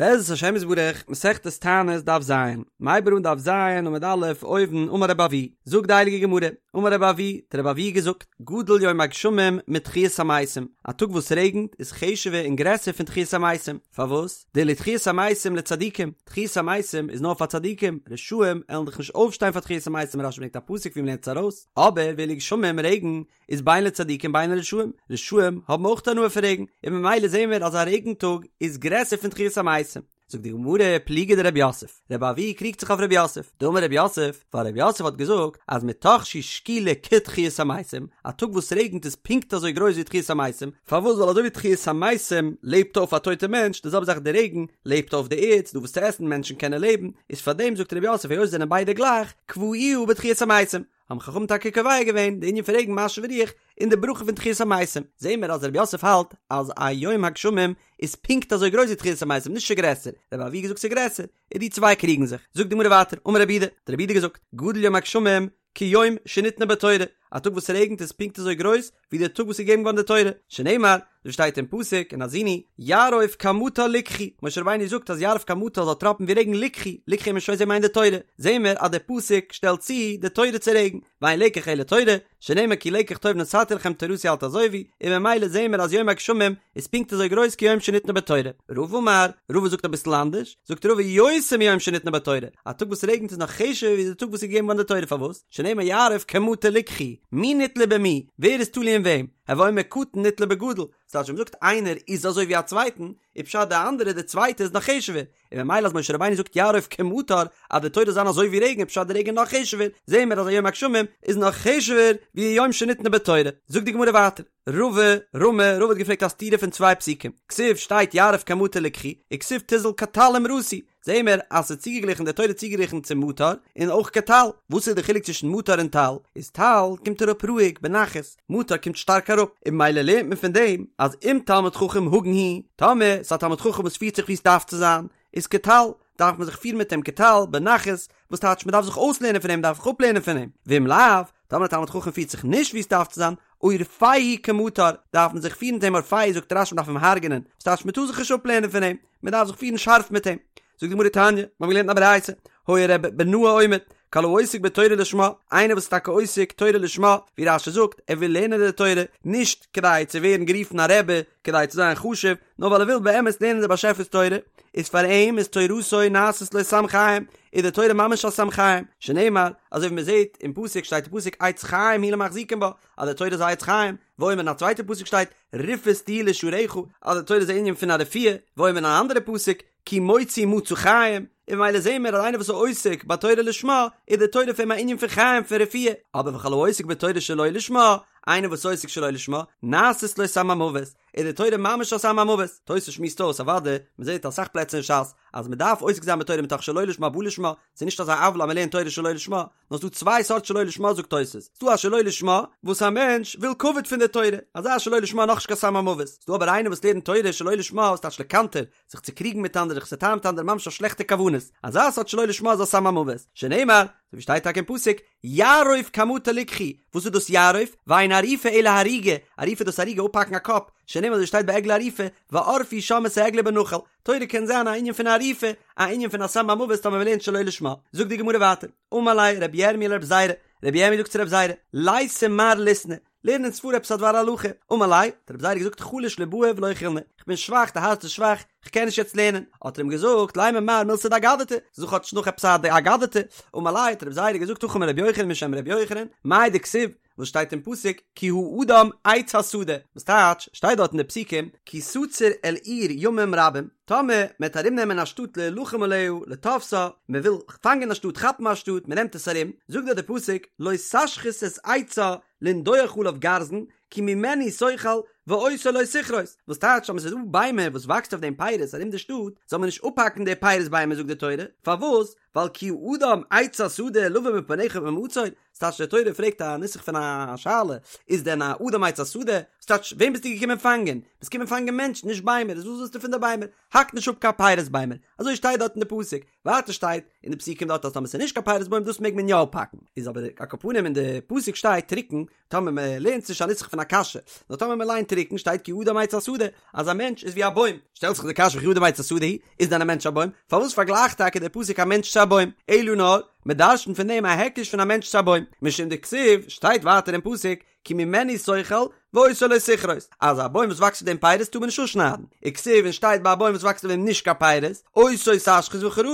בעזרת השם יתברך, מסכת תענית דף ז, מ'הייבט אן דף ז עמוד א', אויבן, אמר רבי אבהו, זאגט די הייליגע גמרא, אמר רבי אבהו, האט רבי אבהו געזאגט, גדול יום הגשמים מתחיית המתים, א טאג וואס רעגנט איז חשוב'ער און גרעסער פון תחיית המתים, פארוואס? דאילו תחיית המתים לצדיקים, תחיית המתים איז נאר פאר צדיקים, רשעים עלן דאך נישט אויפשטיין פאר תחיית המתים, רש"י ברענגט א פסוק ווי מ'לערנט עס ארויס, אבער ואילו גשמים, רעגן, איז בין לצדיקים בין לרשעים, רשעים האבן אויך הנאה פון רעגן, און ממילא זעהן מיר אז א רעגן טאג איז גרעסער פון תחיית המתים. זאגט די גמרא, פליגא דרב יוסף, רבי אבהו קריגט זיך אויף רב יוסף, דאמר רב יוסף, ווייל רב יוסף האט געזאגט אז מתוך שהיא שקולה כתחיית המתים, א טאג וואס רעגנט איז פונקט אזוי גרויס ווי תחיית המתים, פארוואס ווייל אזוי ווי תחיית המתים לעבט אויף א טויטע מענטש, די זעלבע זאך די רעגן לעבט אויף די ערד, ס'דא וואס צו עסן, מענטשן קענען לעבן, איז פארדעם זאגט רב יוסף היות זענען ביידע גלייך, קבעוה בתחיית המתים. האבן חכמים טאקע קובע געווען די ענין פון רעגן משיב הרוח אין די ברכה פון תחיית המתים, זעהן מיר אז רב יוסף האלט אז א יום הגשמים איז פונקט אזוי גרויס ווי תחיית המתים נישט גרעסער, רבי אבהו געזאגט ס'איז גרעסער, און די צוויי קריגן זיך, זאגט די גמרא ווייטער, אמר רב יהודה, האט רב יהודה געזאגט, גדול יום הגשמים כיום שניתנה בו תורה, א טאג וואס ס'רעגנט איז פונקט אזוי גרויס ווי דער טאג וואס איז געגעבן געווארן די תורה, שנאמר, ווי שטייט אין פסוק אין האזינו, יערוף כמטר לקחי, משה רבינו זאגט אז יערוף כמטר זאל טראפן ווי רעגן לקחי, לקחי האט מען שוין געזען מיינט די תורה, זעהן מיר אז דער פסוק שטעלט צו די תורה צו רעגן, ואין לקח אלא תורה, שנאמר כי לקח טוב נתתי לכם תורתי אל תעזובו, און ממילא זעהן מיר אז יום הגשמים איז פונקט אזוי גרויס כיום שניתנה בו תורה. רבא אמר, רבא זאגט אביסל אנדערש, זאגט רבא יותר מיום שניתנה בו תורה, א טאג וואס רעגנט איז נאך חשוב'ער ווי די טאג וואס איז געגעבן געווארן די תורה, פארוואס? שנאמר יערוף כמטר לקחי, מי נתלה במי, ווער איז תלוי אין וועם, הוי אומר קטן נתלה בגדול, ס'טייטש ווען מ'זאגט איינער איז אזוי ווי א צווייטן, איז פשט די אנדערע די צווייטע איז נאך חשוב'ער, און ממילא אז משה רבינו זאגט יערוף כמטר אז די תורה זאל זיין אזוי ווי רעגן איז פשט די רעגן נאך חשוב'ער, זעהן מיר אז א יום הגשמים איז נאך חשוב'ער ווי יום שניתנה בו תורה. זאגט די גמרא ווייטער, רבא רמי, רבא האט געפרעגט א סתירה פון צוויי פסוקים, כתיב שטייט יערוף כמטר לקחי, וכתיב תזל כטל אמרתי, זעהן מיר אז ס'איז צוגעגליכן די תורה איז צוגעגליכן צו מטר און אויך כטל, וואס איז די חילוק צווישן מטר און טל? איז טל קומט אראפ רואיג בנחת, מטר קומט שטארק אראפ, און ממילא לערנט מען פון דעם אז אם תלמיד חכם הגון הוא, טאמער ס'איז א תלמיד חכם וואס פירט זיך ווי ס'דארף צו זיין, איז כטל, דארף מען זיך פירן מיט אים כטל, בנחת, וואס טייטש מ'דארף זיך אויסלערנען פון אים, מ'דארף זיך אפלערנען פון אים, ואם לאו, טאמער א תלמיד חכם פירט זיך נישט ווי ס'דארף צו זיין, עורפהו כמטר, דארף מען זיך פירן מיט אים עורפהו זאגט רש"י מ'דארף אים הרג'נען, וואס טייטש מ'טאר זיך נישט אפלערנען פון אים, מ'דארף זיך פירן שארף מיט אים. זאגט די גמרא תניא, מ'האבן געלערנט א ברייתא, היה ר' בנאה אומר, כל העוסק בתורה לשמה, איינער וואס איז טאקע עוסק תורה לשמה, ווי רש"י זאגט, ער וויל לערנען די תורה, נישט כדי צו ווערן גערופן א רבי, כדי צו זיין חשוב, נאר ווייל ער וויל באמת לערנען די באשעפער'ס תורה, איז פאר אים איז תורתו נעשית לו סם חיים, איז די תורה ממש א סם חיים, שנאמר, אזוי ווי מ'זעט אין פסוק שטייט אין פסוק עץ חיים היא למחזיקים בה, אז די תורה איז א עץ חיים, ואומר אין א צווייטע פסוק שטייט רפאות תהי' לשרך, אז די תורה איז א ענין פון א רפואה, ואומר אין א אנדערע פסוק כי מוצאי מצא חיים, און ממילא זעהן מיר אז איינער וואס איז עוסק בתורה לשמה, איז די תורה פאר אים א ענין פון חיים פון רפואה, אבער וכל העוסק בתורה שלא לשמה, איינער וואס איז עוסק שלא לשמה, נעשית לו סם המוות, איז די תורה ממש א סם המוות, תוס' שמועסט אויס אוודאי, מען זעהט אסאך פלעצער אין ש"ס אז מען דארף עוסק זיין בתורה מתוך שלא לשמה בא לשמה, ס'איז נישט אזא עוולה אז מען לערנט תורה שלא לשמה, נאר ס'דא צוויי סארט שלא לשמה זאגט תוס', ס'דא א שלא לשמה וואס א מענטש וויל כבוד פון די תורה, אזא שלא לשמה נאכנישט קיין סם המוות, ס'דא אבער איינער וואס לערנט תורה שלא לשמה וואס טייטש לקנטר, זיך צו קריגן מיט אנדערע, זיך צו טענה'ן מיט אנדערע ממש אויף שלעכטע כוונות, אזא סארט שלא לשמה איז א סם המוות, שנאמר, אזוי ווי שטייט טאקע אין פסוק, יערוף כמטר לקחי, וואס איז דאס יערוף? ואין עריפה אלא הריגה, עריפה איז דאס הריגה אפהאקן א קאפ, שנאמר אזוי שטייט ביי עגלה ערופה, וערפו שם את העגלה בנחל, תורה קען זיין א ענין פון עריפה, א ענין פון א סם המוות טאמער מ'לערנט שלא לשמה. זאגט די גמרא ווייטער, אמר ליה רבי ירמי' לרבי זירא, רבי ירמי' זאגט צו רבי זירא, ליתי מר ליתני, לערן אונז פאר עפעס א דבר הלכה, אמר ליה, האט רבי זירא געזאגט חלש לבאי ולא יכילנא, איך בין שוואך, די הארץ איז שוואך, איך קען נישט יעצט לערנען, האט ער אים געזאגט, לימא מר מילתא דאגדתא, זאג כאטש נאך עפעס א אגדתא, אמר ליה, האט רבי זירא געזאגט הכי אמר רבי יוחנן משם רבי יוחנן, מאי דכתיב, וואס שטייט אין פסוק כי האדם עץ השדה, וואס טייטש, שטייט דארט אין די פסוקים, כי תצור אל עיר ימים רבים, טאמער מען וועט ארום נעמען א שטאט להילחם עליה לתפשה, מען וויל פאנגען א שטאט כאפן א שטאט, מען נעמט עס ארום, זאגט דארט די פסוק, לא תשחית את עצה לנדוח עליו גרזן, כי ממנו תאכל ואותו לא תכרות, וואס טייטש אז עס איז דא ביימער וואס וואקסט אויף דעם פירות ארום די שטאט, זאל מען נישט אפהאקן די פירות ביימער זאגט די תורה, פארוואס? ווייל כי האדם עץ השדה לבא מפניך במצור, ס'טייטש די תורה פרעגט א נוסח פון א שאלה, איז דען א אדם עץ השדה? ס'טייטש וועם ביסטו געקומען פאנגען? ביסט געקומען פאנגען מענטשן נישט ביימער, איז וואס ווילסטו פון די ביימער? האק נישט אפ קיין פירות ביימער, אזוי שטייט דארט אין די פסוק, ווייטער שטייט אין די פסוקים דארט אז טאמער ס'איז נישט קיין פירות בוים דאס מעג מען יא אפהאקן, איז אבער על כל פנים אין די פסוק שטייט טרוקן, טאמער מען לערנט נישט א נוסח פון א קשיא, נאר טאמער מען ליינט טרוקן שטייט כי האדם עץ השדה, אז א מענטש איז ווי א בוים, שטעלט זיך די קשיא וכי אדם עץ השדה הוא, איז דען א מענטש א בוים? פארוואס פארגלייכט טאקע דער פסוק א מענטש צו א בוים? אלא נאר, מען דרש'נט פון דעם א היקש פון א מענטש צו א בוים, משום דכתיב, שטייט ווייטער אין פסוק, כי ממנו תאכל ואותו לא תכרות, אז א בוים וואס וואקסט אויף דעם פירות טאר מען נישט אפשניידן, וכתיב און שטייט ביי א בוים וואס וואקסט אויף דעם נישט קיין פירות, אותו תשחית וכרת,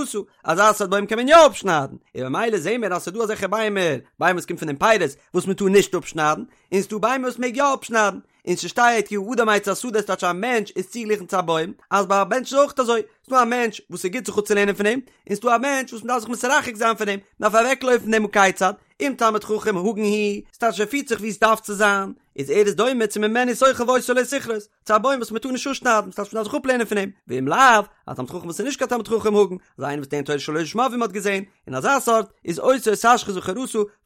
אזא סארט בוים קען מען יא אפשניידן, און ממילא זעהן מיר אז ס'איז דא אזעלכע ביימער, ביימער וואס קומט פון דעם פירות, וואס מען טאר נישט אפשניידן, און ס'דא ביימער וואס מעג יא אפשניידן, און ס'שטייט כי האדם עץ השדה ס'טייטש א מענטש איז צוגעגליכן צו א בוים, אז ביי א מענטש איז אויך אזוי, ס'דא א מענטש וואס ס'גוט זיך אפצולערנען פון אים, און ס'דא א מענטש וואס מ'דארף זיך מתרחק זיין פון אים, מ'דארף אוועקלויפן פון דעם הא כיצד, אם תלמיד חכם הגון הוא, ס'טייטש ער פירט זיך ווי עס דארף צו זיין, איז ער איז דומה צו ממנו תאכל ואותו לא תכרות, צו א בוים וואס מ'טאר נישט אפשניידן, ס'טייטש מ'דארף זיך אפלערנען פון אים, ואם לאו, א תלמיד חכם וואס איז נישט קיין תלמיד חכם הגון, אזא איינער וואס לערנט תורה שלא לשמה ווי מ'האט געזען, און אזא סארט איז אותו תשחית וכרת,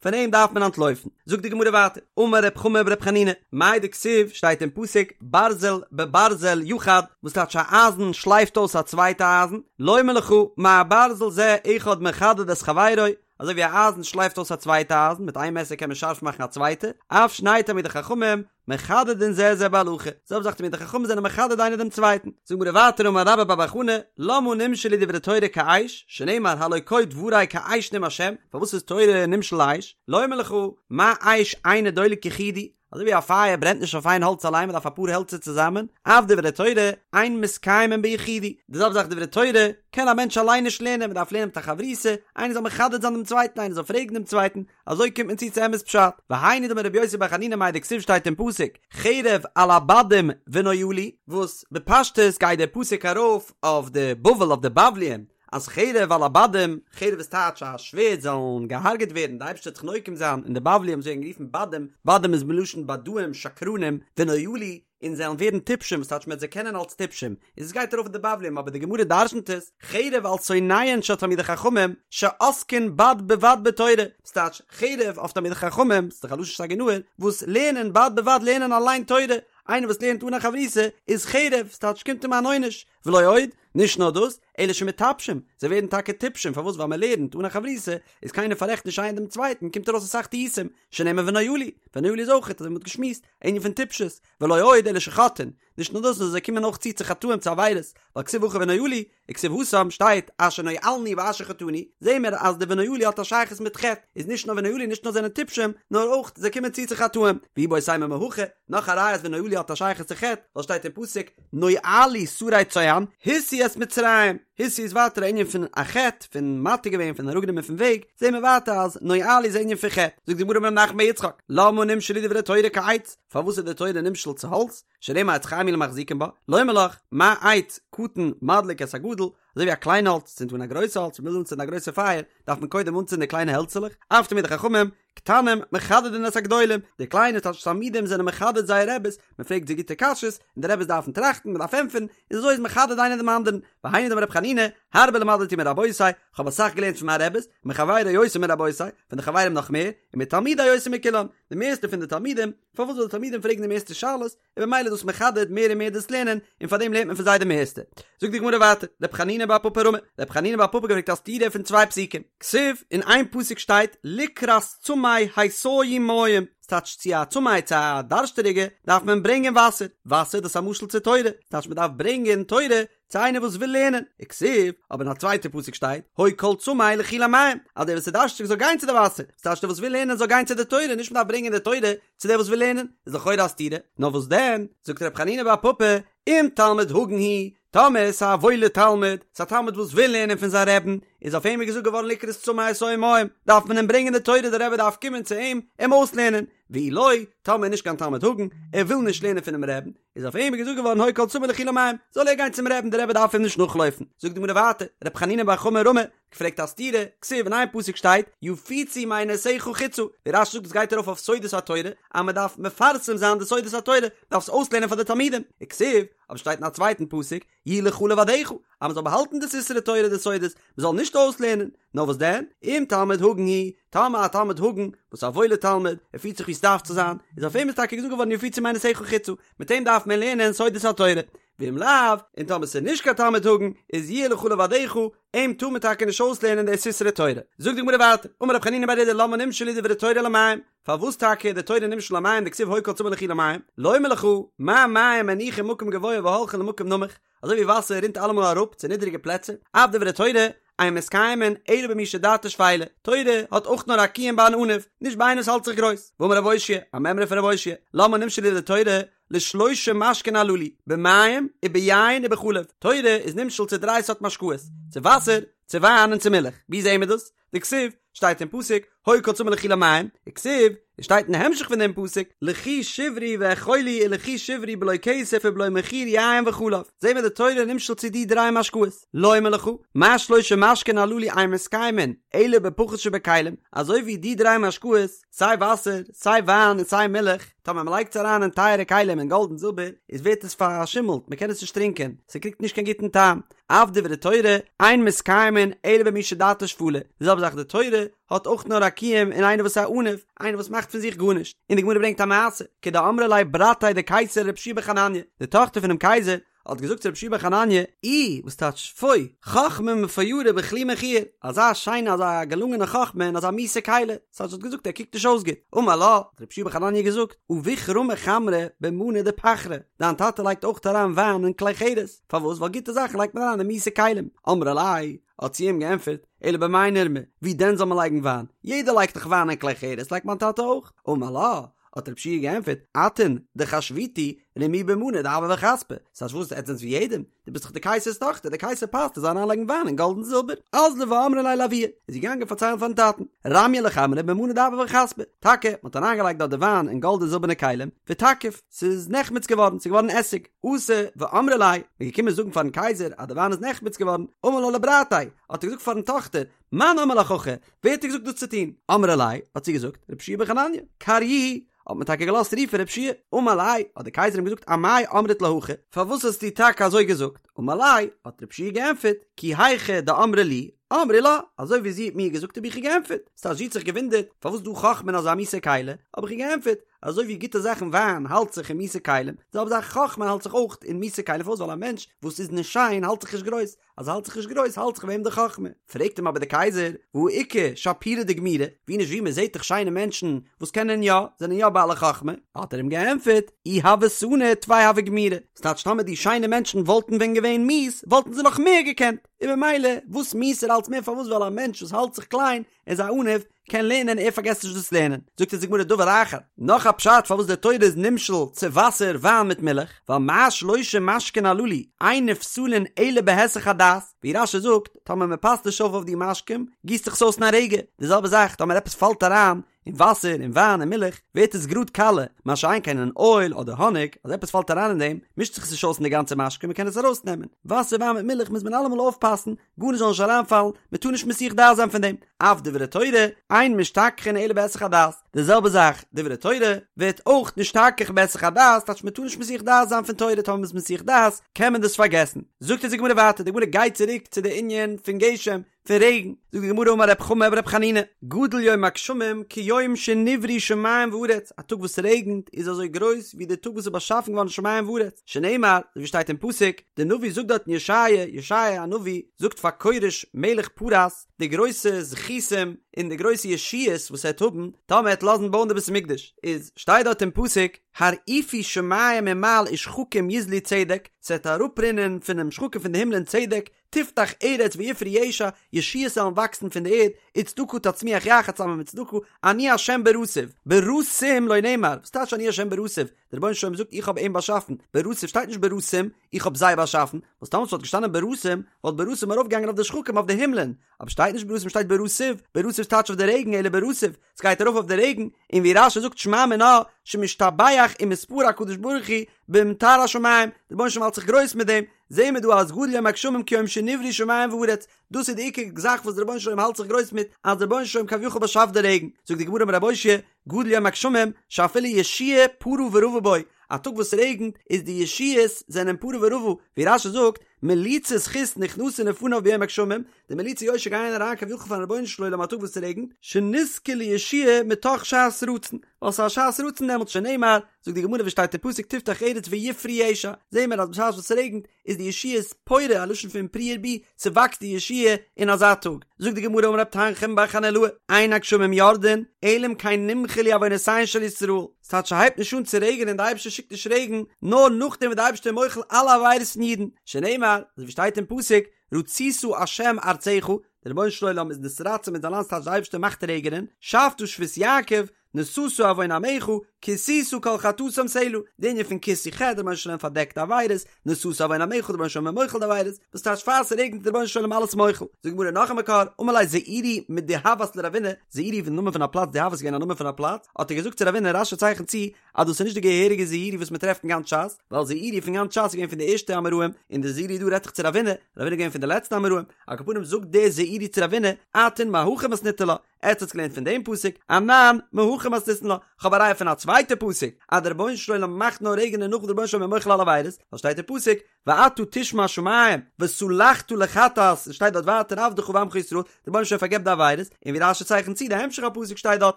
פון אים דארף מען אנטלויפן. זאגט די גמרא ווייטער, אמר רב חמא ברב חנינא, מאי דכתיב, שטייט אין פסוק, ברזל בברזל יחד, וואס טייטש א אייזן שלייפט אויס א צווייטע אייזן, לומר לך, מה ברזל זה אחד מחדד את חברו, אזוי ווי א אייזן שלייפט אויס א צווייטע אייזן, מיט איין מעסער קען מען שארף מאכן א צווייטע, אף שני תלמידי חכמים, מחדדין זה את זה בהלכה, זעלבע זאך תלמידי חכמים זענען מחדד איינער דעם צווייטן. זאגט די גמרא ווייטער אמר רבה בר בר חנה, למה נמשלו דברי תורה כאש, שנאמר הלא כה דברי כאש נאם השם, פארוואס איז תורה נמשל לאש, לומר לך, מה אש אינו דולק יחידי, אזוי ווי א פייער ברענט נישט אויף איין האלץ אליין מען דארף אפאר העלצער צוזאמען, אף דברי תורה אין מתקיימין ביחידי, די זעלבע זאך דברי תורה קען א מענטש אליין נישט לערנען מען דארף לערנען מיט א חברותא, איינער זאל מחדד זיין דעם צווייטן איינער זאל פרעגן דעם צווייטן, אזוי קומט מען צו צו אמת פשט, והיינו דאמר רבי יוסי בר חנינא מאי דכתיב שטייט אין פסוק חרב על הבדים ונואלו, וואס בפשטות גייט דער פסוק ארויף אויף די בבל אויף די בבליים, אז חרב על הבדים, חרב איז טייטש א שווערד זאלן געהארגעט ווערן, די אייבערשטער וועט זיך נוקם זיין אין די בבליים זיי ווערן גערופן בדים, בדים איז מלשון בדאים שקרנים, ונואלו, און זיי וועלן ווערן טיפשים וואס טייטש מען וועט זיי קענען אלס טיפשים, איז עס גייט ארויף אויף די בבליים אבער די גמרא דרשנ'ט עס, חרב על שונאיהן של תלמידי חכמים שעוסקין בד בבד בתורה, וואס טייטש חרב אויף תלמידי חכמים, ס'איז דאך א לשון סגי נהור, וואס לערנען בד בבד לערנען אליין תורה, איינער וואס לערנט אן א חברותא איז חרב, ס'טייטש קומט אים אן עונש, ולא עוד, נישט נאר דאס, אלא שמטפשים, זיי ווערן טאקע טיפשים, פארוואס ווייל מען לערנט אן א חברותא, איז קיינער פאררעכט נישט איינער דעם צווייטן, קומט ארויס אסאך טעותים, שנאמר ונואלו, ונואלו איז אויך, אזוי ווי מען האט געשמועסט, א ענין פון טיפשות, ולא עוד אלא שחוטאין, נישט נאר דאס נאר זיי קומען אויך צו צו חטאים צו עבירות, ווייל כתיב הכא ונואלו, וכתיב התם שטייט אשר נואלנו ואשר חטאנו, זעהן מיר אז די ונואלו האט א שייכות מיט חטא, איז נישט נאר ונואלו נישט נאר זענען טיפשים, נאר אויך זיי קומען צו צו חטאים, ואיבעית אימא מהכא, נאך א ראיה אז ונואלו האט א שייכות צו חטא, ווייל שטייט אין פסוק נואלו שרי צוען, הסיעו את מצרים, הסיעו איז ווייטער א ענין פון א חטא, פון מטעה געווען, פון אראפגענומען פון וועג, זעהן מיר ווייטער אז נואלו איז א ענין פון חטא, זאגט די גמרא אמר רב נחמן בר יצחק, למה נמשלו דברי תורה כעץ, פארוואס איז די תורה נמשל צו האלץ, שנאמר עץ חיים היא למחזיקים בה, לומר לך, מה עץ קטן מדליק את הגדול, אזוי ווי א קליין האלץ צינדט אן א גרויסע האלץ, מ'וויל אנצינדן א גרויסע פייער, דארף מען קודם אנצינדן די קליינע העלצעלעך, אף תלמידי חכמים, קטנים מחדדין את הגדולים, די קליינע תלמידים זענען מחדד זייער רעבעס, מען פרעגט זיי גוטע קשיות, און די רעבעס דארפן טראכטן, מען דארף ענטפערן, און אזוי איז מחדד איינער דעם אנדערן, והיינו דאמר רבי חנינא, הרבה למדתי מרבותי, כ'האב אסאך געלערנט פון מיין רעבעס, מחברי יותר מרבותי, פון די חברים נאך מער, ומתלמידי יותר מכולם, די מערסטע פון די תלמידים, פארוואס ווייל די תלמידים פרעגן די מערסטע שאלות, און במילא איז דאס מחדד מער און מער דאס לערנען, און פאר דעם לערנט מען פון זיי די מערסטע. זאגט די גמרא ווייטער, רב חנינא בר פפא רמי, רב חנינא בר פפא געפרעגט א סתירה פון צוויי פסוקים, כתיב, אין איין פסוק שטייט לקראת צמא התיו מים, ס'טייטש צו א צמא צו א דארשטעריגע דארף מען ברענגען וואסער, וואסער דאס איז א משל צו תורה, ס'טייטש מען דארף ברענגען תורה צו איינער וואס וויל לערנען, וכתיב, אבער אין א צווייטע פסוק שטייט, הוי כל צמא לכו למים, אז דער וואס איז דארשטיג זאל גיין צו די וואסער, ס'טייטש דער וואס וויל לערנען זאל גיין צו די תורה, נישט מ'דארף ברענגען די תורה צו דער וואס וויל לערנען, איז לכאורה א סתירה, נאר וואס דען, זאגט ר' חנינא בר פפא, אם תלמיד הגון הוא, טאמער ס'איז א וואוילער תלמיד, ס'איז א תלמיד וואס וויל לערנען פון זיין רעבן, איז אויף אים איז געזאגט געווארן לקראת צמא התיו מים, דארף מען אים ברענגען די תורה, דער רבי דארף קומען צו אים, אים אויסלערנען, ואי לא, טאמער נישט קיין תלמיד הגון, ער וויל נישט לערנען פונעם רעבן, איז אויף אים איז געזאגט געווארן הוי כל צמא לכו למים, זאל ער גיין צום רעבן, דער רבי דארף אים נישט נאכלויפן. זאגט די גמרא ווייטער, ר' חנינא בר חמא רמי, געפרעגט א סתירה, כתיב אין איין פסוק שטייט, יפוצו מעינותיך חוצה, ווי רש"י זאגט דאס גייט ארויף אויף סודות התורה, אז מען דארף מפרסם זיין די סודות התורה, מען דארף עס אויסלערנען פאר די תלמידים, וכתיב, אבער שטייט אין א צווייטן פסוק, יהיו לך לבדך, אז מען זאל באהאלטן די סתרי תורה די סודות, מען זאל נישט אויסלערנען, נאר וואס דען, אם תלמיד הגון הוא, טאמער א תלמיד הגון, וואס איז א וואוילער תלמיד, ער פירט זיך ווי עס דארף צו זיין, איז אויף אים איז טאקע געזאגט געווארן יפוצו מעינותיך חוצה, מיט אים דארף מען לערנען סודות התורה, ואם לאו, און טאמער ס'איז נישט קיין תלמיד הגון, איז יהיו לך לבדך, אים טאר מען טאקע נישט אויסלערנען די סתרי תורה. זאגט די גמרא ווייטער, אמר רב חנינא בר אידי למה נמשלו דברי תורה למים, פארוואס טאקע איז די תורה נמשל למים דכתיב הוי כל צמא לכו למים, לומר לך, מה מים מניחין מקום גבוה והולכין למקום נמוך, אזוי ווי וואסער רינט אלעמאל אראפ צו נידריגע פלעצער, אף דברי תורה, אין מתקיימין אלא במי שדעתו שפלה, תורה האט אויך נאר א קיום ביי אן עניו, נישט ביי איינער וואס האלט זיך גרויס, ואמר רב אושעיא, א מימרא פון רב אושעיא, למה נמשלו דברי תורה, לשלושה משקין הללו, במים וביין ובחלב, תורה איז נמשל צו דריי סארט משקאות, צו וואסער, צו וויין און צו מילך, ווי זעהן מיר דאס? דכתיב, שטייט אין פסוק, הוי כל צמא לכו למים, וכתיב, און שטייט אין המשך פון דעם פסוק, לכו שברו ואכלו ולכו שברו בלא כסף ובלא מחיר יין וחלב, זעהן מיר די תורה נמשל צו די דריי משקאות, לומר לך, מה שלושה משקין הללו אין מתקיימין, אלא בפחות שבכלים, אזוי ווי די דריי משקאות, סיי וואסער, סיי וויין און סיי מילך, טאמער מען לייגט עס אריין אין טייערע כלים אין גאלד און זילבער, איז ווערט עס פארשימלט, מען קען עס נישט טרינקען, ס'קריגט נישט קיין גוטן טעם. אף דברי תורה, אין מתקיימין אלא במי שדעתו שפלה, די זעלבע זאך די תורה האט אויך נאר א קיום אין איינער וואס איז א עניו, איינער וואס מאכט פון זיך גארנישט, און די גמרא ברענגט א מעשה, כדאמרה ליה ברתיה דקיסר לרבי יהושע בן חנניה, די טאכטער פונעם קייזער האט געזאגט צו רבי יהושע בן חנניה, אי, וואס טייטש פוי, חכמה מפוארה בכלי מכוער, אזא שיינע אזא געלונגענע חכמה אין אזא מיסע כלי, ס'הייסט זי האט געזאגט ער קוקט נישט אויס גוט, אמר לה, האט רבי יהושע בן חנניה געזאגט, אבוך רמי חמרא במאני דפחרא, דיין טאטע לייגט אויך אריין וויין אין כלי חרס, פארוואס? ווייל גוטע זאכן לייגט מען אריין אין מיסע כלים. אמרה ליה, האט זי אים געענטפערט, אלא במאי נרמי, ווי דען זאל מען לייגן וויין? יעדער לייגט דאך וויין אין כלי חרס, לייגט מיין טאטע אויך. אמר לה, האט רבי יהושע געענטפערט, אתון דחשביתו רמיוה במאני דהבא וכספא, ס'הייסט וואס, עטס זענטס ווי יעדעם? דו ביסט דאך די קייסער'ס טאכטער, דער קייסער פאסט ער זאל אריינלייגן וויין אין גאלד און זילבער. אזלא ואמרה ליה לאבוה, איז זי געגאנגען פארציילן פארן טאטן, רמיוה לחמרא במאני דהבא וכספא, טאקע, מ'האט אריינגעלייגט דארט די וויין אין גאלד און זילבערנע כלים, ותקיף, ס'איז נחמץ געווארן, ס'איז געווארן עסיג. אתו ואמרו ליה, מ'איז געקומען זאגן פארן קייזער אז די וויין איז נחמץ געווארן, אמר לה לברתיה, האט ער געזאגט פארן טאכטער, מאן אמר לך הכי, ווער האט דיר געזאגט דאס צו טון? אמרה ליה, האט זי געזאגט, רבי יהושע בן חנניה, קריוהו, האט מען טאקע געלאזט רופן רבי יהושע, אמר ליה, האט דער קייזער אים געזאגט אמאי אמרת לה הכי, פארוואס האסטו טאקע אזוי געזאגט? אמר ליה, האט רבי יהושע געענטפערט, כי היכי דאמרה לי, אמרי לה, אזוי ווי זי האט מיר געזאגט האב איך איר געענטפערט, ס'הייסט זי האט זיך געוואונדערט פארוואס דא חכמה אין אזא מיסע כלי, האב איך איר געענטפערט, אזוי ווי גוטע זאכן וויין האלט זיך אין מיסע כלים, די זעלבע זאך חכמה האלט זיך אויך אין מיסע כלים, פארוואס ווייל א מענטש וואס איז נישט שיין האלט זיך נישט גרויס, אז ער האלט זיך נישט גרויס האלט זיך ביי אים די חכמה. פרעגט אים אבער דער קייזער, והא איכא שפירי דגמירי, ווי נישט ווי מען זעט דאך שיינע מענטשן וואס קענען יא, זענען יא בעלי חכמה, האט ער אים געענטפערט, אי הוו סנו טפי הוו גמירי, ס'טייטש טאמער די שיינע מענטשן וואלטן ווען געווען מיס וואלטן זיי נאך מער געקענט, און ממילא וואס מיסער אלץ מער פארוואס ווייל א מענטש וואס האלט זיך קליין איז א עניו, קען לערנען ער פארגעסט נישט דאס לערנען, זאגט אונז די גמרא דבר אחר, נאך א פשט פארוואס די תורה איז נמשל צו וואסער וויין מיט מילך, ווייל מה שלושה משקין הללו אין נפסלין אלא בהיסח הדעת, ווי רש"י זאגט, טאמער מען פאסט נישט אויף אויף די משקים, גיסט זיך עס אויס אין א רגע, די זעלבע זאך טאמער עפעס פאלט אריין אין וואסער אין וויין אין מילך, ווערט עס גראד קאלע, מה שאין כן אין אויל אדער האניג, אז עפעס פאלט אריין אין דעם, מישט זיך עס נישט אויס אין די גאנצע משקה מען קען עס ארויסנעמען, וואסער וויין מיט מילך מוז מען אלעמאל אויפפאסן, גארנישט זאל נישט אריינפאלן, מען טאר נישט מסיח דעת זיין פון דעם, אף דברי תורה, אין משתכחין אלא בהיסח הדעת, די זעלבע זאך, דברי תורה, ווערט אויך נשתכח בהיסח הדעת, טייטש מען טאר נישט מסיח דעת זיין פון תורה, טאמער מען איז מסיח דעת, קען מען דאס פארגעסן. זאגט אונז די גמרא ווייטער, די גמרא גייט צוריק צו די ענין פון גשם, פון רעגן, זאגט די גמרא אמר רב חמא ברב חנינא, גדול יום הגשמים כיום שנבראו שמים וארץ, א טאג וואס ס'רעגנט איז אזוי גרויס ווי די טאג וואס איז באשאפן געווארן שמים וארץ, שנאמר, אזוי ווי שטייט אין פסוק, די נביא זאגט דארט אין ישעיה, ישעיה הנביא זאגט פאר כורש מלך פרס, די גרויסע זכותים און די גרויסע ישועות וואס ער וועט האבן טאמער ער וועט לאזן בויען די בית המקדש, איז שטייט דארט אין פסוק, הרעיפו שמים ממעל ושחקים יזלו צדק, ס'וועט אראפרינען פונעם שחקים פון די הימלען צדק, תפתח ארץ ויפרו ישע, ישועות וועלן וואקסן פון די ערד, וצדקה תצמיח יחד צוזאמען מיט צדקה, אני ה' בראתיו, בראתים לא נאמר, וואס טייטש אני ה' בראתיו? דער רבונו של עולם זאגט איך האב אים באשאפן, בראתיו שטייט נישט בראתים, איך האב זיי באשאפן, וואס טאמער ס'וואלט געשטאנען בראתים, וואלט בראתים ארויפגעגאנגען אויף די שחקים אויף די הימלען, אבער שטייט נישט ברתים שטייט ברטיב, ברטיב טייטש אויף די רעגן אלא ברטיב, ס'גייט ארויף אויף די רעגן, און ווי רש"י זאגט שמע מינה שמשתבח ומתפאר הקדוש ברוך הוא במטר השמים, די רבונו של עולם האלט זיך גרויס מיט דעם, זעהן מיר דא אז גדול יום הגשמים כיום שנבראו שמים וארץ, דאס איז די עיקר זאך וואס די רבונו של עולם האלט זיך גרויס מיט, אז די רבונו של עולם כביכול באשאפט די רעגן, זאגט די גמרא אמר רב אושעיא, גדול יום הגשמים שאפילו ישועה פרה ורבה בו, א טאג וואס ס'רעגנט איז די ישועות זענען פרה ורבה, ווי רש"י זאגט, מליצי זכות נכנסין לפניו ביום הגשמים, די מליצי יושר גייען אריין כביכול פארן רבונו של עולם א טאג וואס ס'רעגנט, שנזכה לישועה מתוך שעת רצון, ווייל ס'איז א שעת רצון דעמאלטס שנאמר, זאגט די גמרא ווי שטייט אין פסוק תפתח ארץ ויפרו ישע, זעהן מיר אז בשעת וואס ס'רעגנט איז די ישועות פורה, א לשון פון פרו ורבו, ס'וואקסט די ישועה אין אזא טאג. זאגט די גמרא אמר רב תנחום בר חנילאי, אין הגשמים יורדין, אלא אם כן נמחלו עוונותיהן של ישראל, ס'טייטש ס'הייבט נישט אן צו רעגענען די אייבערשטער שיקט נישט רעגן נאר נאכדעם וואס די אייבערשטער איז מוחל אלע עבירות פון אידן, שנאמר, אזוי ווי שטייט אין פסוק, רצית ה' ארצך, דער רבונו של עולם איז נתרצה מיט זיין לאנד ס'טייטש די אייבערשטער מאכט רעגענען, שאבת שבות יעקב, נשאת עון עמך, כסית כל חטאתם סלה, די ענין פון כיסוי חטא, דער רבונו של עולם פארדעקט עבירות, נשאת עון עמך, דער רבונו של עולם איז מוחל די עבירות, וואס טייטש פאר ס'רעגנט איז דער רבונו של עולם אלעס מוחל. זאגט די גמרא נאך א מקור, אמר ליה זעירי מדהות לרבינא, זעירי איז די נאמען פון א פלאץ, דהות איז געווען א נאמען פון א פלאץ, האט ער געזאגט צו רבינא, רש"י צייכנט צו אז דאס איז נישט די געהעריגע זעירי וואס מען טרעפט אין גאנץ ש"ס, ווייל זעירי פון גאנץ ש"ס איז געווען פון די ערשטע אמוראים, און די זעירי דא רעדט זיך צו רבינא, רבינא איז געווען פון די לעצטע אמוראים, על כל פנים זאגט דער זעירי צו רבינא, אתון מהכא מתניתו לה, עטס האטס געלערנט פון דעם פסוק, אנן מהכא מתניתין לה, כ'האב א ראיה פון א צווייטע פסוק, אז דער רבונו של עולם מאכט נאר רעגענען נאך דער רבונו של עולם איז מוחל אלע עבירות, ווייל שטייט אין פסוק, ואתה תשמע שמים, וסלחת לחטאת, און שטייט דארט ווייטער עבדך ועמך ישראל, דער רבונו של עולם פארגעבט די עבירות, און ווי רש"י צייכנט צו די המשך הפסוק שטייט דארט,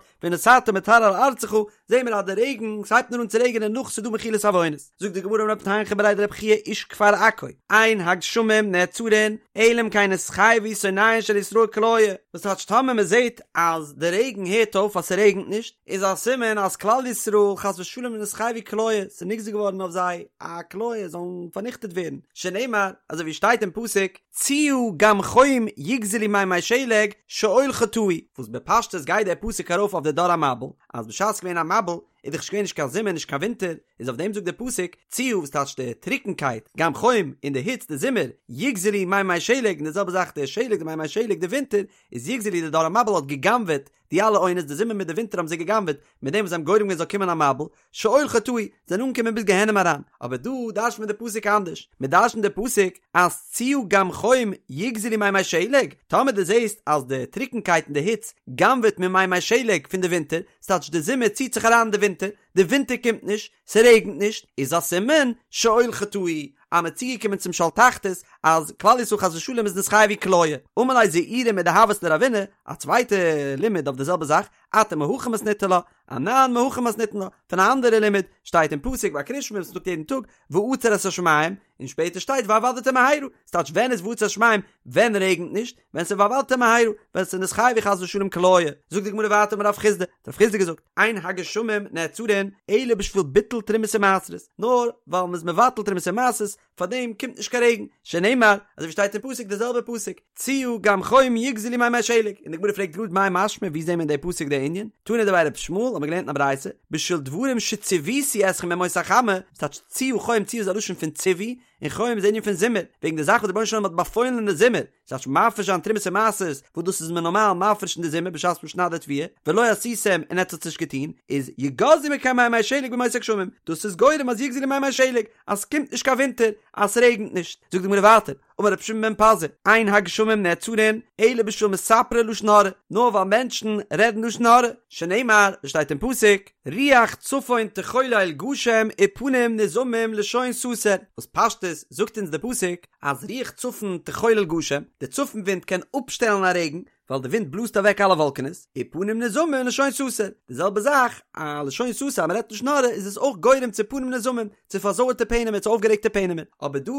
ונתתה מטר על ארצך, זעהן מיר אז די רעגן, ס'הייבט נאר אן צו רעגענען נאך ס'איז דא מחילת עוונות. זאגט די גמרא אמר רב תנחום בריה דרב חייא איש כפר עכו, אין הגשמים נעצרין, אלא אם כן נתחייבו שונאיהן של ישראל כליה, וואס טייטש טאמער מען זעהט אז די רעגן הערט אויף אז ס'רעגנט נישט, איז א סימן אז כלל ישראל חס ושלום נתחייבו כליה, ס'איז נגזר געווארן אויף זיי א כליה זאלן פארניכטעט ווערן, שנאמר אזוי ווי שטייט אין פסוק, ציה גם חום יגזלו מימי שלג שאול חטאו, וואס בפשטות גייט דער פסוק ארויף אויף די דור המבול, אז בשעת ס'איז געווען א מבול איז דאך נישט געווען נישט קיין זומער נישט קיין ווינטער, איז אויף דעם זאגט דער פסוק, ציה וואס טייטשט די טרוקנקייט, גם חום, און די היץ די זומער, יגזלו מימי שלג, און די זעלבע זאך די שלג די מימי שלג די ווינטער, איז יגזלו די דור המבול האט גע'גנב'עט די אלע עונות די זומער מיט די ווינטער האבן זיי גע'גנב'עט, מיט דעם וואס זיי האבן גורם געווען זאל קומען א מבול, שאול חטאו, זענען אנגעקומען ביז גיהנום אריין, אבער דא דרש'נט מען די פסוק אנדערש, מען דרש'נט די פסוק אז ציה גם חום יגזלו מימי שלג, טאמער דו זעסט אז די טרוקנקייט און די היץ גנב'עט ממימי שלג פון די ווינטער, ס'טייטש די זומער ציט זיך אריין אין די ווינטער, די ווינטער קומט נישט, ס'רעגנט נישט, איז א סימן שאול חטאו, אז מ'איז צוגעקומען צום שאול תחתית, אז כלל ישראל חס ושלום איז נתחייבו כליה. אמר ליה זעירי מדהות לרבינא, א צווייטע לימוד אויף די זעלבע זאך, אתון מהכא מתניתו לה, אנן מהכא מתניתין לה, פון א אנדערע לימוד, שטייט אין פסוק ביי קריאת שמע וואס מ'זאגט יעדן טאג, ועצר את השמים, און שפעטער שטייט והאבדתם מהרה, ס'טייטש ווען איז ועצר את השמים, ווען רעגנט נישט, ווען ס'איז והאבדתם מהרה, ווען ס'איז נתחייבו חס ושלום כליה, זאגט די גמרא ווייטער אמר רב חסדא, האט רב חסדא געזאגט, אין הגשמים נעצרין אלא בשביל ביטול תרומות ומעשרות, נאר ווייל מ'איז מבטל תרומות ומעשרות, פארדעם קומט נישט קיין רעגן, שנאמר, אזוי ווי שטייט אין פסוק די זעלבע פסוק, ציה גם חום יגזלו מימי שלג, און די גמרא פרעגט גראד מאי משמע ווי זעהן מיר אין די פסוק די ענין, תנא דבי רבי ישמעאל האט מען געלערנט אין א ברייתא, בשביל דברים שציוויתי אתכם בימות החמה, ס'טייטש ציה חום ציה איז א לשון פון ציווי, און חום איז די ענין פון זומער, וועגן די זאך וואס דער רבונו של עולם האט באפוילן אין די זומער, ס'טייטש מפריש זיין תרומות און מעשרות, וואס דאס איז מען נארמאל מפריש אין די זומער בשעת מען שניידט די תבואה, ולא עשיתם און עטס האטס נישט געטון, איז יגזלו מכם מימי שלג בימות הגשמים, דאס איז גורם אז יגזלו מימי שלג, אז ס'קומט נישט קיין ווינטער, אז ס'רעגנט נישט. זאגט די גמרא ווייטער, אמר רבי שמעון בן פזי, אין הגשמים נעצרין אלא בשביל מספרי לשון הרע, נאר ווייל מענטשן רעדן לשון הרע, שנאמר, ווי שטייט אין פסוק, רוח צפון תחולל גשם ופנים נזעמים לשון סתר, וואס פשטות זאגט אונז די פסוק אז רוח צפון תחולל גשם, די צפון ווינט קען אפשטעלן א רעגן, ווייל די ווינט בלאזט אוועק אלע וואלקענעס, ופנים נזעמים לשון סתר, די זעלבע זאך, א לשון סתר אז מען רעדט לשון הרע איז עס אויך גורם צו פנים נזעמים, צו פארזויערטע פענעמער, צו אויפגערעגטע פענעמער, אבער דא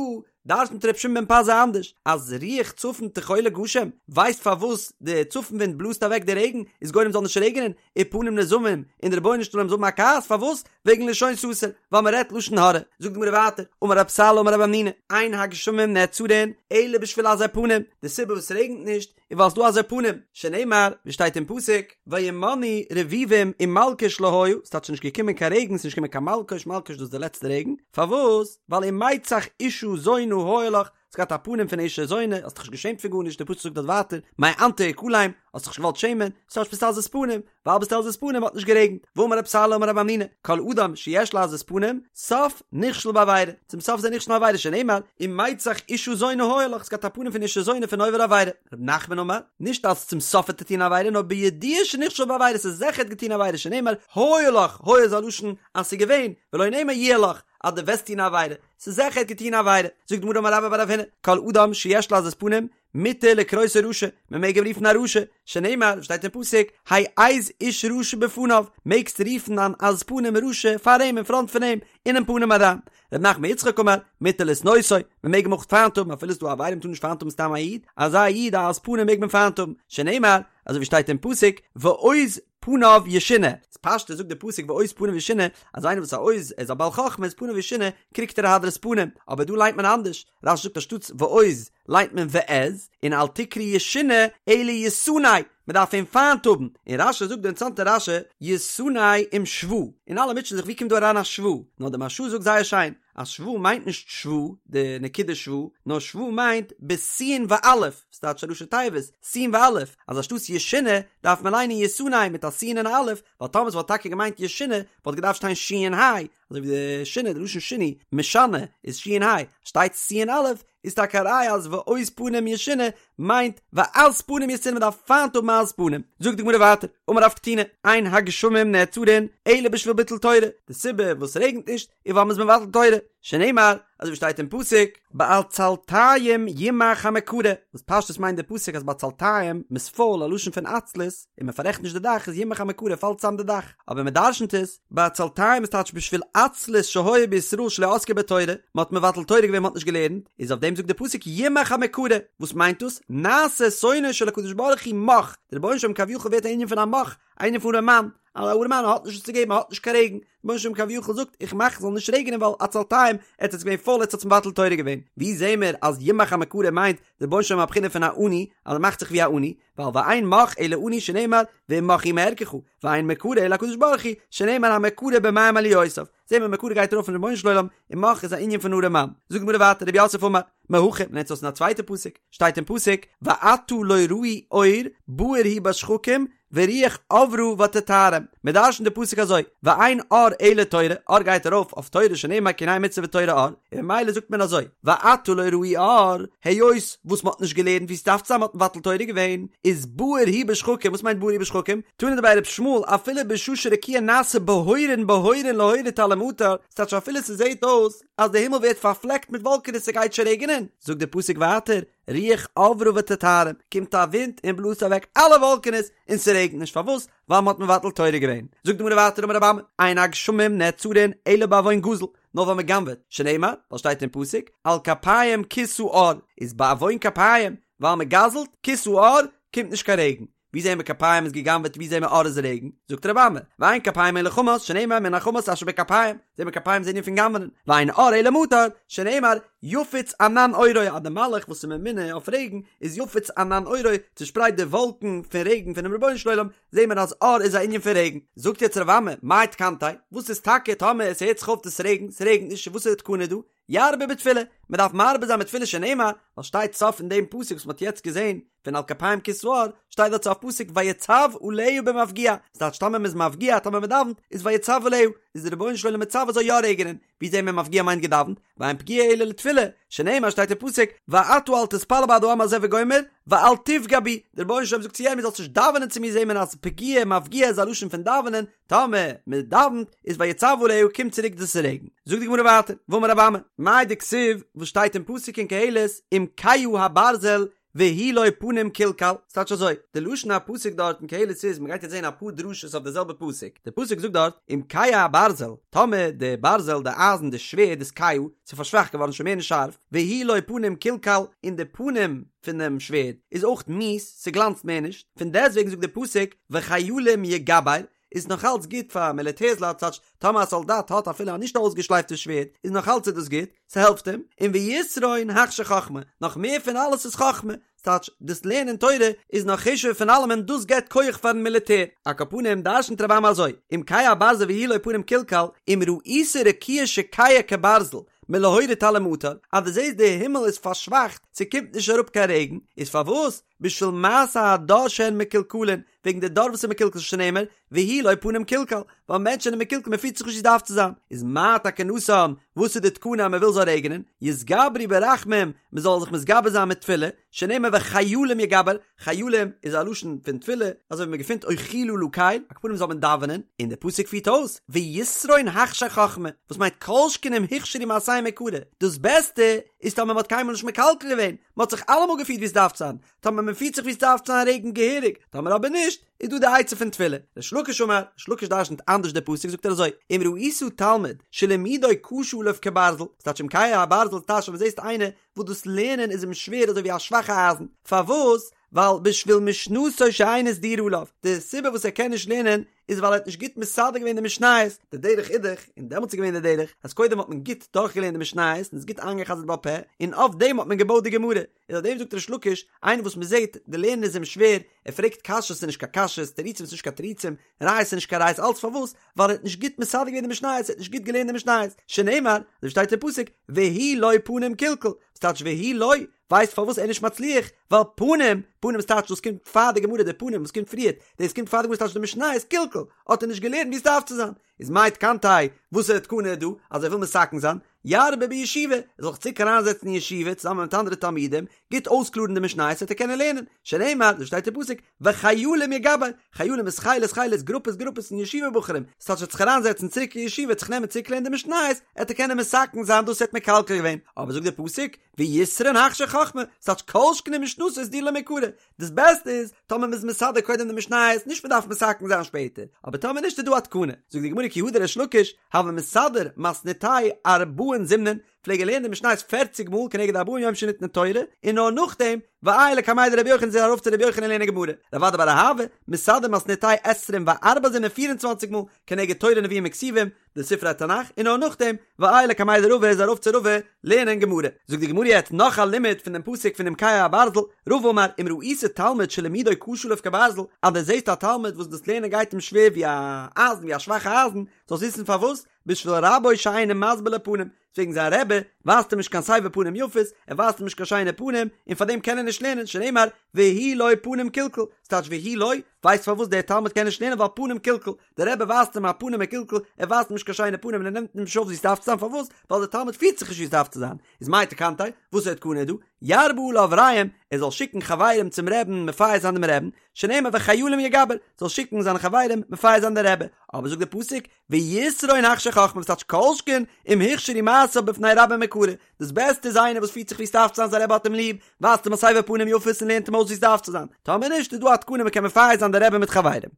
דרש'נט ר' שמעון בן פזי אנדערש, אז רוח צפון תחולל גשם, ווייסט פארוואס די צפון ווינט בלאזט אוועק די רעגן, איז גורם זאל נישט רעגענען, ופנים נזעמים, און די רבונו של עולם זאל האבן א כעס, פארוואס? וועגן לשון סתר, ווייל מען רעדט לשון הרע. זאגט די גמרא ווייטער, אמר רב סלא אמר רב המנונא, אין הגשמים נעצרין אלא בשביל עזי פנים, די סיבה וואס ס'רעגנט נישט איז ווייל ס'דא עזי פנים, שנאמר, ווי שטייט אין פסוק, וימנעו רביבים ומלקוש לא היה, ס'טייטש נישט געקומען קיין רעגן, ס'נישט געקומען קיין מלקוש, מלקוש דאס איז די לעצטע רעגן, פארוואס? ווייל ומצח אשה זונה היה לך, האסט געהאט א פנים פון אשה זונה, האסט דיך נישט געשעמט פון גארנישט, דער פסוק זאגט דארט ווייטער, מאנת הכלם, האסט דיך נישט געוואלט שעמען, ס'טייטש ביסט עזות פנים, ווייל ביסט עזות פנים האט נישט גערעגנט, ואמר רב סלא אמר רב המנונא, כל אדם שיש לו עזות פנים, סוף נכשל בעבירה, צום סוף איז ער נכשל אין עבירה שנאמר, ומצח אשה זונה היה לך, האסט געהאט א פנים פון אשה זונה פון עובר עבירה. רב נחמן אמר, נישט אז צום סוף וועט ער טון עבירה, נאר בידוע שנכשל בעבירה, ס'איז זיכער ער האט געטון עבירה, שנאמר, היה לך, היה איז א לשון אז ס'איז געווען, ולא נאמר יהיה לך, אז דו וועסט טון עבירה, ס'איז זיכער ער האט געטון עבירה. זאגט די גמרא אמר רבה בר רב הונא, כל אדם שיש לו עזות פנים, מותר לקרותו רשע, מען מעג אים רופן א רשע, שנאמר, שטייט אין פסוק, העז איש רשע בפניו, מעגסט רופן אן עז פנים רשע פאר אים אין פראנט פון אים, אינעם פנים אריין. ר' נחמן בר יצחק אמר, מותר לשנאותו, מען מעג אים אויך פיינט האבן אפילו ס'איז דא עבירה מ'טאר נישט פיינט האבן סתם א איד, אזא איד א עז פנים מעג מען פיינט האבן, שנאמר, אזוי ווי שטייט אין פסוק, ועוז פניו ישונה, איז פשטות זאגט די פסוק ועוז פניו ישונה, אז איינער וואס א עוז, ער איז א בעל חכמה איז פניו ישונה, קריגט ער א הדרת פנים, אבער דא ליינט מען אנדערש, רש"י זאגט אנשטאטס ועוז ליינט מען ועז, און אל תקרי ישונה אלא ישנא, מען דארף אים פיינט האבן, און רש"י זאגט די אינטערעסאנטע רש"י, ישנא עם שווא, און אלע מוטשען זיך ווי קומט דא אריין א שווא, נאר די מהרש"א זאגט זייער שיין, אז שווא מיינט נישט שווא, די נקודה שווא, נאר שווא מיינט בסין ואלף, ס'טייטש א ראשי תיבות, סין ואלף, אז אנשטאטס ישונה דארף מען ליינען ישנא מיט א סין און א אלף, ווייל טאמער ס'וואלט טאקע געמיינט ישונה וואלט געדארפט שטיין שין היי, אזוי ווי די שינה, די לשון שינוי, משנה, איז שין היי, שטייט סין אלף, איז טאקע א ראיה אז ועוז פנים ישונה מיינט ועז פנים ישנא מ'דארף פיינט האבן עז פנים. זאגט די גמרא ווייטער, אמר רב קטינא, אין הגשמים נעצרין אלא בשביל ביטול תורה, די סיבה וואס ס'רעגנט נישט איז ווייל מ'איז מבטל תורה, שנאמר, אזוי ווי שטייט אין פסוק, בעצלתיים ימך המקרה, וואס פשטות מיינט די פסוק אז בעצלתיים, מ'איז פויל, א לשון פון עצלות, און מ'פאררעכט נישט די דאך איז ימך המקרה פאלט צאם די דאך, אבער מ'דרשנ'ט עס, בעצלתיים איז טייטש בשביל עצלות שהיה בישראל שלא עסקו בתורה, מ'האט מבטל תורה געווען מ'האט נישט געלערנט, איז אויף דעם זאגט די פסוק ימך המקרה, וואס מיינט דאס? נעשה שונאו של הקדוש ברוך הוא מך, די רבונו של עולם כביכול ווערט א ענין פון א מך, א ענין פון ארעמאן, א ארעמאן האט נישט וואס צו געבן, ער האט נישט קיין רעגן, רבונו של עולם כביכול זאגט איך מאך ס'זאל נישט רעגענען ווייל עצלתיים, עטס איז געווען פויל עטס האטס מבטל תורה געווען, ווי זעהן מיר אז ימך המקרה מיינט די רבונו של עולם א בחינה פון א עני, אז ער מאכט זיך ווי א עני, ווייל ואין מך אלא עני שנאמר ואם מך הוא מערכך, ואין מקרה אלא הקדוש ברוך הוא, שנאמר המקרה במים עליותיו, זעהן מיר מקרה גייט ארויף אויפן רבונו של עולם, און מך איז א ענין פון ארעמאן. זאגט די גמרא ווייטער רב יוסף אמר, מהכא, מ'לערנט עס אויס אין א צווייטע פסוק, שטייט אין פסוק, ועתה לא ראו אור, בהיר הוא בשחקים, ורוח עברה ותטהרם. מען דרשנ'ט די פסוק אזוי, ואין אור אלא תורה, אור גייט ארויף אויף תורה שנאמר כי הנה מצוה ותורה אור, און ממילא זאגט מען אזוי, ועתה לא ראו אור, היות וואס מען האט נישט געלערנט ווי ס'דארף צו זיין מען האט מבטל תורה געווען, איז בהיר הוא בשחקים, וואס מיינט בהיר הוא בשחקים? תנא דבי ר' ישמעאל, אפילו בשעה שרקיע נעשה בהורין בהורין להוריד טל ומטר, ס'טייטש אפילו ס'זעהט אויס אז די הימל ווערט פארפלעקט מיט וואלקענעס ס'גייט שוין רעגענען, זאגט די פסוק ווייטער, רוח עברה ותטהרם, קומט א ווינט און בלאזט אוועק אלע וואלקענעס און ס'רעגנט נישט, פארוואס? ווייל מ'האט מבטל תורה געווען. זאגט די גמרא ווייטער אמר רבי אמי, אין הגשמים נעצרין אלא בעוון גזל, נאר ווייל מ'גנב'עט, שנאמר, ווייל שטייט אין פסוק, על כפיים כסה עור, איז בעוון כפיים, ווייל מ'גזל'ט, כסה עור, קומט נישט קיין רעגן. ווי זעהן מיר כפיים איז גע'גנב'עט ווי זעהן מיר עור איז רעגן? זאגט רבי אמי, ואין כפיים אלא חמס, שנאמר מן החמס אשר בכפיים, זעהן מיר כפיים איז ענין פון גנב'נען, ואין עור אלא מטר, שנאמר, יפיץ ענן עורו, אז די מלאך וואס איז ממונה אויף רעגן, איז יפיץ ענן עורו, צושפרייט די וואלקן פון רעגן פונעם רבונו של עולם, זעהן מיר אז עור איז א ענין פון רעגן. זאגט יעצט רבי אמי, מאי תקנתיה, וואס איז טאקע טאמער עס הערט זיך אויף דאס רעגן, ס'רעגנט נישט, וואס איז די תקנה דא? ירבה בתפילה, מען דארף מרבה זיין מיט תפילה שנאמר, ווייל שטייט סוף אין דעם פסוק וואס מען האט יעצט געזען פון על כפיים כסה עור, שטייט דארט סוף פסוק ויצו עליה במפגיע, ס'טייטש טאמער מען איז מפגיע טאמער מען דאווענט איז ויצו עליה, איז די רבונו של עולם מצווה זאל יא רעגענען, ווי זעהן מיר מפגיע מיינט געדאווענט, ואין פגיעה אלא לתפילה, שנאמר שטייט אין פסוק ואתה אל תתפלל בעד העם הזה וגומר, ואל תפגע בי, די רבונו של עולם זאגט צו ירמי' זאלסט נישט דאווענען צו מיר זעהן מיר אז פגיעה מפגיע איז א לשון פון דאווענען, טאמער מען דאווענט איז ויצו עליה קומט צוריק דאס רעגן. זאגט די גמרא ווייטער, ואמר רבי אמי, מאי דכתיב וואס שטייט אין פסוק אין קהלת אם כהה הברזל והוא לו פנים כלכל, ס'טייטש אזוי, די לשון הפסוק דארט אין קהלת איז, מ'גייט יעצט זען אפאר דרשות אויף די זעלבע פסוק, די פסוק זאגט דארט אם כהה הברזל, טאמער די ברזל, די אייזן, די שווערד איז כהה, ס'איז פארשוואכט געווארן שוין מער נישט שארף, והוא לו פנים כלכל, און די פנים פונעם שווערד איז אויך מיאוס, ס'גלאנצט מער נישט, פון דעסטוועגן זאגט די פסוק וחיילים יגבר, איז נאך אלץ גוט פאר מיליטערסלייט ס'טייטש טאמער א סאלדאט האט אפילו א נישט אויסגעשלייפטע שווערד איז נאך אלץ איז דאס גוט, ס'העלפט אים, און ויתרון הכשיר חכמה, נאך מער פון אלעס איז חכמה, ס'טייטש דאס לערנען תורה איז נאך חשוב'ער פון אלעמען דאס געבט כח פארן מיליטער, על כל פנים דרשנ'ט רבי אמי אזוי, אם כהה הברזל והוא לו פנים כלכל, אם ראית רקיע שכהה כברזל, מלהוריד טל ומטר, אז דו זעסט די הימל איז פארשוואכט, ס'קומט נישט אראפ קיין רעגן, איז פארוואס? בשביל מעשה הדור שהן מקולקלין, וועגן די דור וואס איז מקולקל שנאמר, והוא לא פנים קלקל, ווייל מענטשן זענען מקולקל מען פירט זיך נישט ווי ס'דארף צו זיין, איז מה תקנתן, וואס איז די תקנה אז מען וויל זאל רעגענען, יתגברו ברחמים, מען זאל זיך מתגבר זיין מיט תפילה, שנאמר וחיילים יגבר, חיילים איז א לשון פון תפילה, אזוי ווי מען געפינט אוחילה לקל, על כל פנים זאל מען דאווענען, און דער פסוק פירט אויס, ויתרון הכשיר חכמה, וואס מיינט כל שכן אם הוכשרו מעשיהם מעיקרא, דאס בעסטע איז טאמער מען האט קיינמאל נישט מקלקל געווען, מען האט זיך אלעמאל געפירט ווי עס דארף צו זיין, טאמער מען פירט זיך ווי עס דארף צו זיין רעגנט געהעריג, טאמער אבער נישט, איז דא די עצה פון תפילה. ריש לקיש אמר, ריש לקיש דרשנ'ט אנדערש די פסוק זאגט ער אזוי, אם ראית תלמיד שלימודו קשה עליו כברזל, ס'טייטש אם קהה הברזל טייטש אז זעסט איינער וואס דאס לערנען איז אים שווער אזוי ווי א שוואכע אייזן, פארוואס? ווייל בשביל משנתו שאינה סדורה עליו, די סיבה וואס ער קען נישט לערנען איז ווייל ער האט נישט גוט מסדר געווען די משניות, די דרך איז דאך, און דעמאלטס איז געווען די דרך, אז קודם האט מען גוט דורכגעלערנט די משניות און עס גוט איינגע'חזר'ט בעל פה, און אויף דעם האט מען געבויט די גמרא, איז אויף דעם זאגט ריש לקיש, איינער וואס מען זעט די לערנען איז אים שווער, ער פרעגט קשיות ס'איז נישט קיין קשיות, תירוצים איז נישט קיין תירוצים, ראיות איז נישט קיין ראיות, אלץ פארוואס? ווייל ער האט נישט גוט מסדר געווען די משניות, ער האט נישט גוט געלערנט די משניות, שנאמר, אזוי שטייט אין פסוק, והוא לא פנים קלקל, וואס טייטש והוא לא? ווייסט פארוואס ער איז נישט מצליח? ווייל פנים, פנים איז טייטש דאס קומט פאר די גמרא, די פנים וואס קומט פריערט, דאס קומט פאר די גמרא ס'טייטש די משניות קלקל, האט ער נישט געלערנט ווי עס דארף צו זיין, איז מאי תקנתיה, וואס איז די תקנה דא, אז ער וויל מתקן זיין, ירבה בישיבה, ער זאל זיך צוריק אריינזעצן אין ישיבה צוזאמען מיט אנדערע תלמידים, גוט אויסקלארן די משניות וועט ער קענען לערנען, שנאמר, אזוי שטייט אין פסוק, וחיילים יגבר, חיילים איז חילות חילות, גרופעס גרופעס פון ישיבה בחורים, ס'טייטש ער וועט זיך אריינזעצן צוריק אין ישיבה, וועט זיך נעמען צוריק לערנען די משניות, עט ער קענען מתקן זיין דאס ער האט מקלקל געווען, אבער זאגט דער פסוק, ויתרון הכשיר חכמה, ס'טייטש כל שכן אם משנתו סדורה לו מעיקרא, דאס בעסטע איז טאמער מ'איז מסדר קודם די משניות, נישט מ'דארף מתקן זיין שפעטער, אבער טאמער נישט איז דא א תקנה, זאגט די גמרא כי הא דריש לקיש, הוה מסדר מתניתיה ארבעין זימנין, פלעג ער לערנען די משניות פערציג מאל כנגד ארבעים יום שניתנה תורה, און נאר נאכדעם, ועייל לקמיה דרבי יוחנן איז ער ארויף צו רבי יוחנן לערנען גמרא, רב אדא בר אהבה, מסדר מתניתיה עשרים וארבע זימנין פיר און צוואנציג מאל, כנגד תורה נביאים וכתובים, די ספרי התנך, און נאר נאכדעם, ועייל לקמיה דרבא איז ארויף צו רבא לערנען גמרא. זאגט די גמרא יעצט נאך א לימוד פון דעם פסוק פון אם קהה הברזל, רבא אמר אם ראית תלמיד שלימודו קשה עליו כברזל, אז דו זעסט א תלמיד וואס דאס לערנען גייט אים שווער ווי א אייזן ווי א שוואכע אייזן, זאלסט וויסן פארוואס, בשביל רבו שאינו מסביר לו פנים, וועגן זיין רבי ווייזט אים נישט קיין סבר פנים יפות, ער ווייזט אים נישט קיין שיינע פנים, און פאר דעם קען ער נישט לערנען, שנאמר והוא לא פנים קלקל, ס'טייטש והוא לא, ווייסט פארוואס דער תלמיד קען נישט לערנען ווייל פנים קלקל, דער רבי ווייזט אים א פנים מקולקל, ער ווייזט אים נישט קיין שיינע פנים און ער נעמט אים נישט אויף ווי ס'דארף צו זיין, פארוואס? ווייל דער תלמיד פירט זיך נישט ווי ס'דארף צו זיין, איז מאי תקנתיה, וואס איז די תקנה דא? ירבה עליו רעים, ער זאל שיקן חברים צום רעבן מפייס זיין דעם רעבן, שנאמר וחיילים יגבר, זאל שיקן זיינע חברים מפייס זיין דער רבי, אבער זאגט דער פסוק, ויתרון הכשיר חכמה וואס טייטש כל שכן אם הוכשרו מעשיו בפני רבו מעיקרא, דאס בעסטע איז איינער וואס פירט זיך ווי ס'דארף צו זיין זיין רבי האט אים ליב, ווייזט אים א סבר פנים יפות און לערנט אים אויס ווי ס'דארף צו זיין, טאמער נישט איז דא א תקנה מ'קען מפייס זיין די רבי מיט חברים.